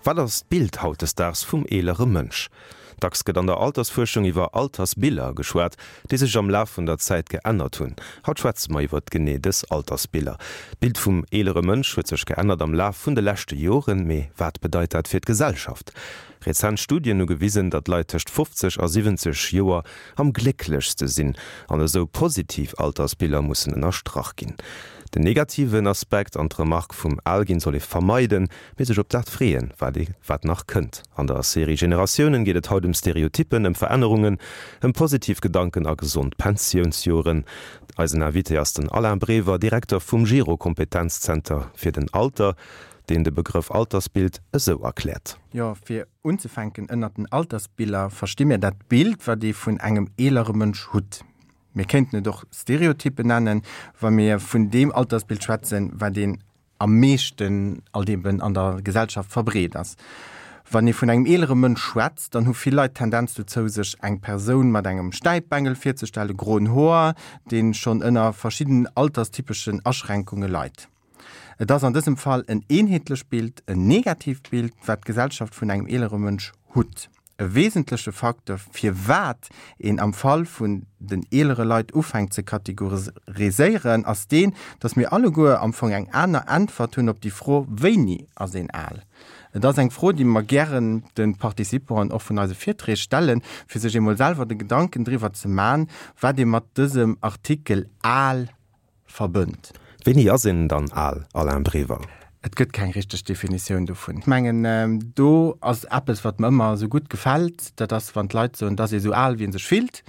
Wat ass d'Bild hautdesdaags vum eelere Mënsch? Dacks gëtt an der Altersfuerschung iwwer Altersbiller geschwat, déi sech am Laf vun der Zäit geännert hunn. Haut schwätze mer iwwer genee dës Altersbiller. D'Bild vum eelere Mënsch huet sech geännert am Laf vun de leschte Joren. Mee wat bedeit dat fir d'Gesellschaft? Rezent Studien hu gewisen, datt Leit tëscht 50 a 70 Joer am glécklechste sinn an esou positiv Altersbiller mussen ënnerstrach ginn. Den negativen Aspekt an d'Remark vum Alginn soll ee vermeiden, mee sech op dat freeën, wat ee wat nach kënnt. An der Serie Generatiounen geet et haut ëm Stereotyppen, ëm Verännerungen, ëm positiv Gedanken a gesond Pensiounsjoren. Eisen Invité ass den Alain Brever, Direkter vum Gero Kompetenzzenter fir den Alter, deen de Begrëff Altersbild esou erkläert. Jo, fir unzefänken, ënnert den Altersbiller versti mir dat Bild, wat ee vun engem eelere Mënsch hutt. Mir kéinten et och Stereotyppen nennen, wa mir vun deem Altersbild schwätzen, wat een am meeschten alt eben an der Gesellschaft verbreet ass. Wann ee vun engem eelere Mënsch schwätzt, dann hu vill Leit d'Tendenz dozou, sech eng Persoun mat engem Stäipbengel virzestellen, groen Hoer, dee schonn ënner verschiddenen alterstypeschen Aschränkunge leit. Et ass an dësem Fall en eenheetlecht Bild, en negatiivt Bild, wat d'Gesellschaft vun engem eelere Mënsch hutt. E wesentleche Facteur, firwat een am Fall vun den eelere Leit ufänkt ze kategoriséieren, ass deen, datt mir alleguer am Fong eng aner Äntwert hunn op déi Fro, Wéini ass een al? Et ass eng Fro, déi mer gären de Participanten och vun eise Virträg stellen, fir sech eemol selwer de Gedanken driwwer ze man, wat ee mat dësem Artikel al verbënnt. Wéini ass een dann al, Alain Brever? Et gëtt keng richteg Definitioun dovun. Ech mengen, do ass eppes, wat mer ëmmer esou gutt gefält, dat ass, wann d'Leit soen, et ass ee sou al, wéi ee sech fillt.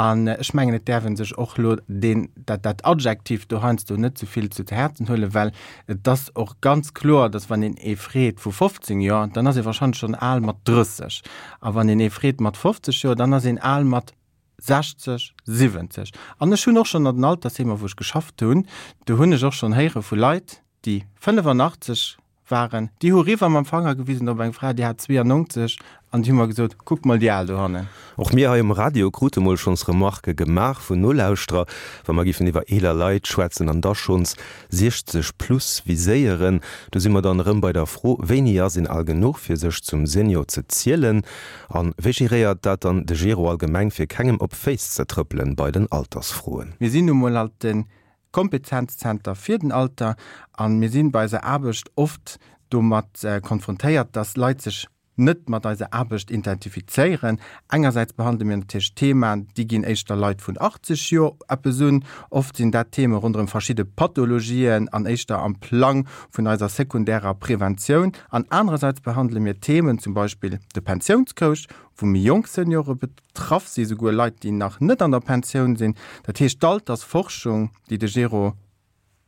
An ech mengen, et däerf ee sech och elo deen, dat, dat Adjektiv do heiansdo net ze vill zu Häerzen huelen, well et ass och ganz kloer, datt wann een ee freet vu 15 Joer, dann ass ee warscheinlech schonn al mat 30. A wann een ee freet mat 50 Joer, dann ass een al mat 60, 70. An ech hunn och schonn an den Altersheemer, wou ech geschafft hunn, do hunn ech och schonn héiere vu Leit, déi 85 waren, déi hu riwwer mam Fanger gewisen op eng Fra, déi hat 92, an déi hu mer gesot, Kuck mol déi Al dohannen. Och mir hei um Radio krute mol schonns Remarquë gemaach vun Nolauschterer, wa mer giffen iwwer eeler Leit schwätzen an da schonns 60 plus viséieren. Do si mer dann erëm bei der Fro, Wéini ass een al genuch, fir sech zum Senior ze zielen? A wéi geréiert dat dann de Gero allgemeng, fir kengem op d'Féiss ze trëppelen bei den Altersfroen? Mir sinn nu mol alt de Kompetenzzenter fir den Alter a mir sinn bei eiser Aarbecht oft domat konfrontéiert, dass Leit sech net mat eiser Aarbecht identifizéieren. Engersäits behandele mir natierlech Themaen, déi ginn éischter Leit vun 80 Joer eppes un. Oft sinn dat Theme ronderëm verschidde Pathologien an éischter am Plang vun eiser sekundärer Preventioun. An anerersäits behandele mir Themen, zum Beispill de Pensiounscoach, wou méi jonk Seniore betraff sinn, souguer Leit, déi nach net an der Pensioun sinn. Dat heescht, d'Altersforschung, déi de Gero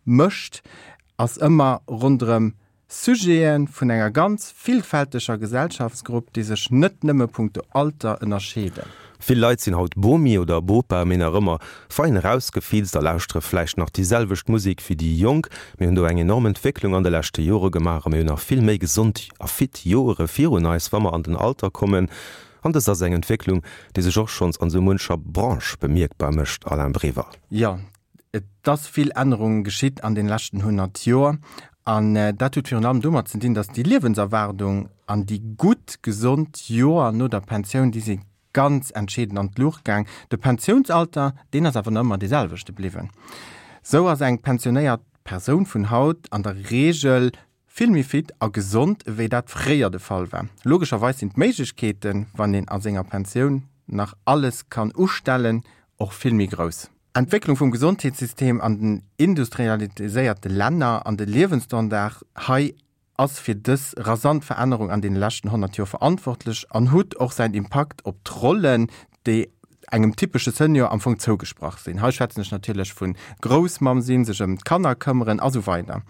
mécht, ass ëmmer ronderëm Sujete vun enger ganz villfälteger Gesellschaftsgrupp, déi sech net nëmme punkto Alter ënnerscheeden. Vill Leit sinn haut Bomi oder Bopa, mee nach ëmmer fein erausgefilzt a lauschtere vläicht nach déi selwecht Musek wéi déi Jonk. Mir hunn do eng enorm Entwécklung an de leschte Jore gemaach a mir hunn nach vill méi gesond a fit Joere virun eis, wa mer an den Alter kommen. An dëst ass eng Entwécklung, déi sech och schonns an esou muncher Branche bemierkbar mécht, Alain Brever. Jo, Et ass vill Ännerung geschitt an den leschten 100 Joer an dat huet virun allem domat ze dinn, datt déi Liewenserwaardung an déi gutt gesond Joer no der Pensioun, déi si ganz entscheedend an d'Luucht gaang. De Pensiounsalter, deen ass awer nach ëmmer dee selwechte bliwwen. Sou ass eng pensionéiert Persoun vun haut an der Reegel vill méi fit a gesond ewéi dat fréier de Fall war. Logescherweis sinn d'Méiglechkeeten, wann een a senger Pensioun nach alles kann ustellen, och vill méi grouss. Entwécklung vum Gesondheetssystem an den industrialiséierte Länner an de Liewensstandard hei ass fir dës rasant Verännerung an deene leschten 100 Joer verantwortlech an hutt och säin Impakt op d'Rollen, déi engem typesche Senior am Fong zougesprach sinn. Hei schwätzen ech natierlech vu Groussmamm sinn, sech ëm d'Kanner këmmeren a sou weider.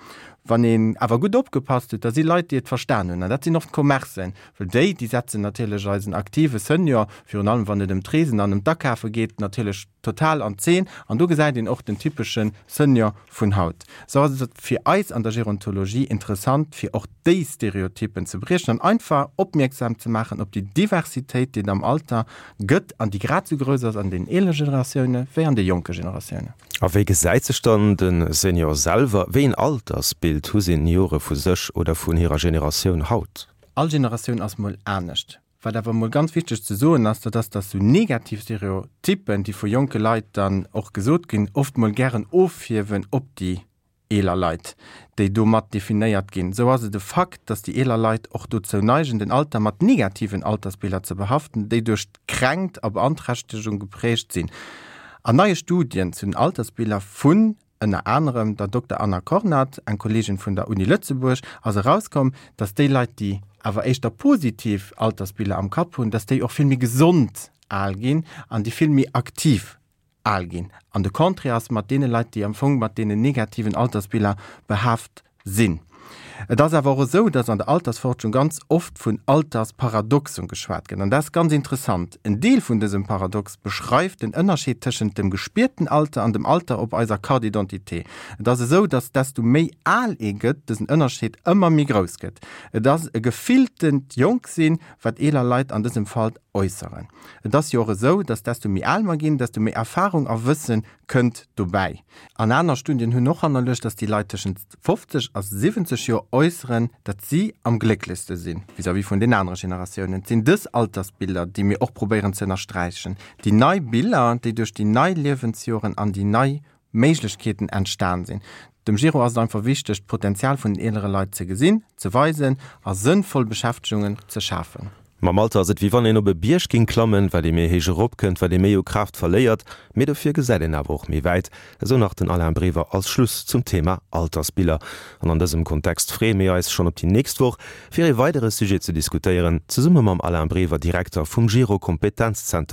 Wann een awer gutt opgepasst huet, da si Leit, déi et verstan hunn, an dat sinn oft d'Commercen, well déi, déi setzen natierlech eisen aktive Senior, virun allem wann et ëm d'Reesen an ëm d'Akafe geet, natierlech total an d'Zeen. An do gesäit een och den typesche Senior vun haut. Sou ass et fir eis an der Gerontologie interessant, fir och déi Stereotypen ze briechen an einfach opmierksam ze maachen op déi Diversitéit, déi et am Alter gëtt an déi grad sou grouss ass an den eelere Generatioune wéi an de jonke Generatiounen. A wéi gesäit sech dann de Senior selwer? Wéi een Altersbild hu Seniore vu sech oder vun hirer Generatioun haut? All Generatioun ass mol anescht. Wat awer mol ganz wichteg ze soen ass, dat ass, dass sou negativ Stereotyppen, déi vu jonke Leit dann och gesot ginn, oft mol gären ofhiewen op déi eeler Leit, déi do mat definéiert ginn. Sou ass et e Fakt, dass déi eeler Leit och dozou neigen, den Alter mat negativen Altersbiller ze behaften, déi duerch d'Kränkt a Beanträchtegung geprägt sinn. An neie Studien zu den Altersbiller vun ënner anerem der Dokter Anna Kornat, eng Kolleegin vun der Uni Lëtzebuerg, ass erauskomm, dass déi Leit, déi awer éischter positiv Altersbiller am Kapp hunn, dass déi och vill méi gesond al ginn an déi vill méi aktiv al ginn. An de Contraire ass mat deene Leit, déi am Fong mat deenen negativen Altersbiller behaaft sinn. Et ass awer och esou, dass an der Altersforschung ganz oft vun Altersparadoxen geschwat gëtt. An dat ass ganz interessant. En Deel vun dësem Paradox beschreift den Ënnerscheed tëschent dem gespierten Alter an dem Alter op eiser Carte d'identité. Et ass esou, dass desto méi al ee gëtt, dësen Ënnerscheed ëmmer méi grouss gëtt. Et ass e gefilltent Jonksinn, wat eeler Leit an dësem Fall äusseren. Et ass jo och esou, dass desto méi al mer ginn, desto méi Erfahrung a Wësse kënnt dobäi. An aner Studien hunn och hannerluecht, dass déi Leit tëschent 50 a 70 Joer äusseren, datt si am glécklechste sinn vis-à-vis vun den anere Generatiounen. Et sinn dës Altersbiller, déi mir och probéieren ze ënnersträichen. Déi nei Biller, déi duerch déi nei Liewensjoren an déi nei Méiglechkeeten entstan sinn. Dem Giro ass et einfach wichteg, d'Potenzial vun den eelere Leit ze gesinn, ze weisen a sënnvoll Beschäftegungen ze schafen. Mam Alter ass et wéi wann een op e Bierg ging klammen, wat ee méi héich erop kënnt, wat ee méi u Kraaft verléiert, mee dofir gesäit een awer och méi wäit, esou nach den Alain Brever als Schluss zum Thema Altersbiller. An an dësem Kontext freeë mir eis schonn op déi nächst Woch, fir ee weidere Sujet ze diskutéieren, zesumme mam Alain Brever, Direkter vum Giro Kompetenzzenter.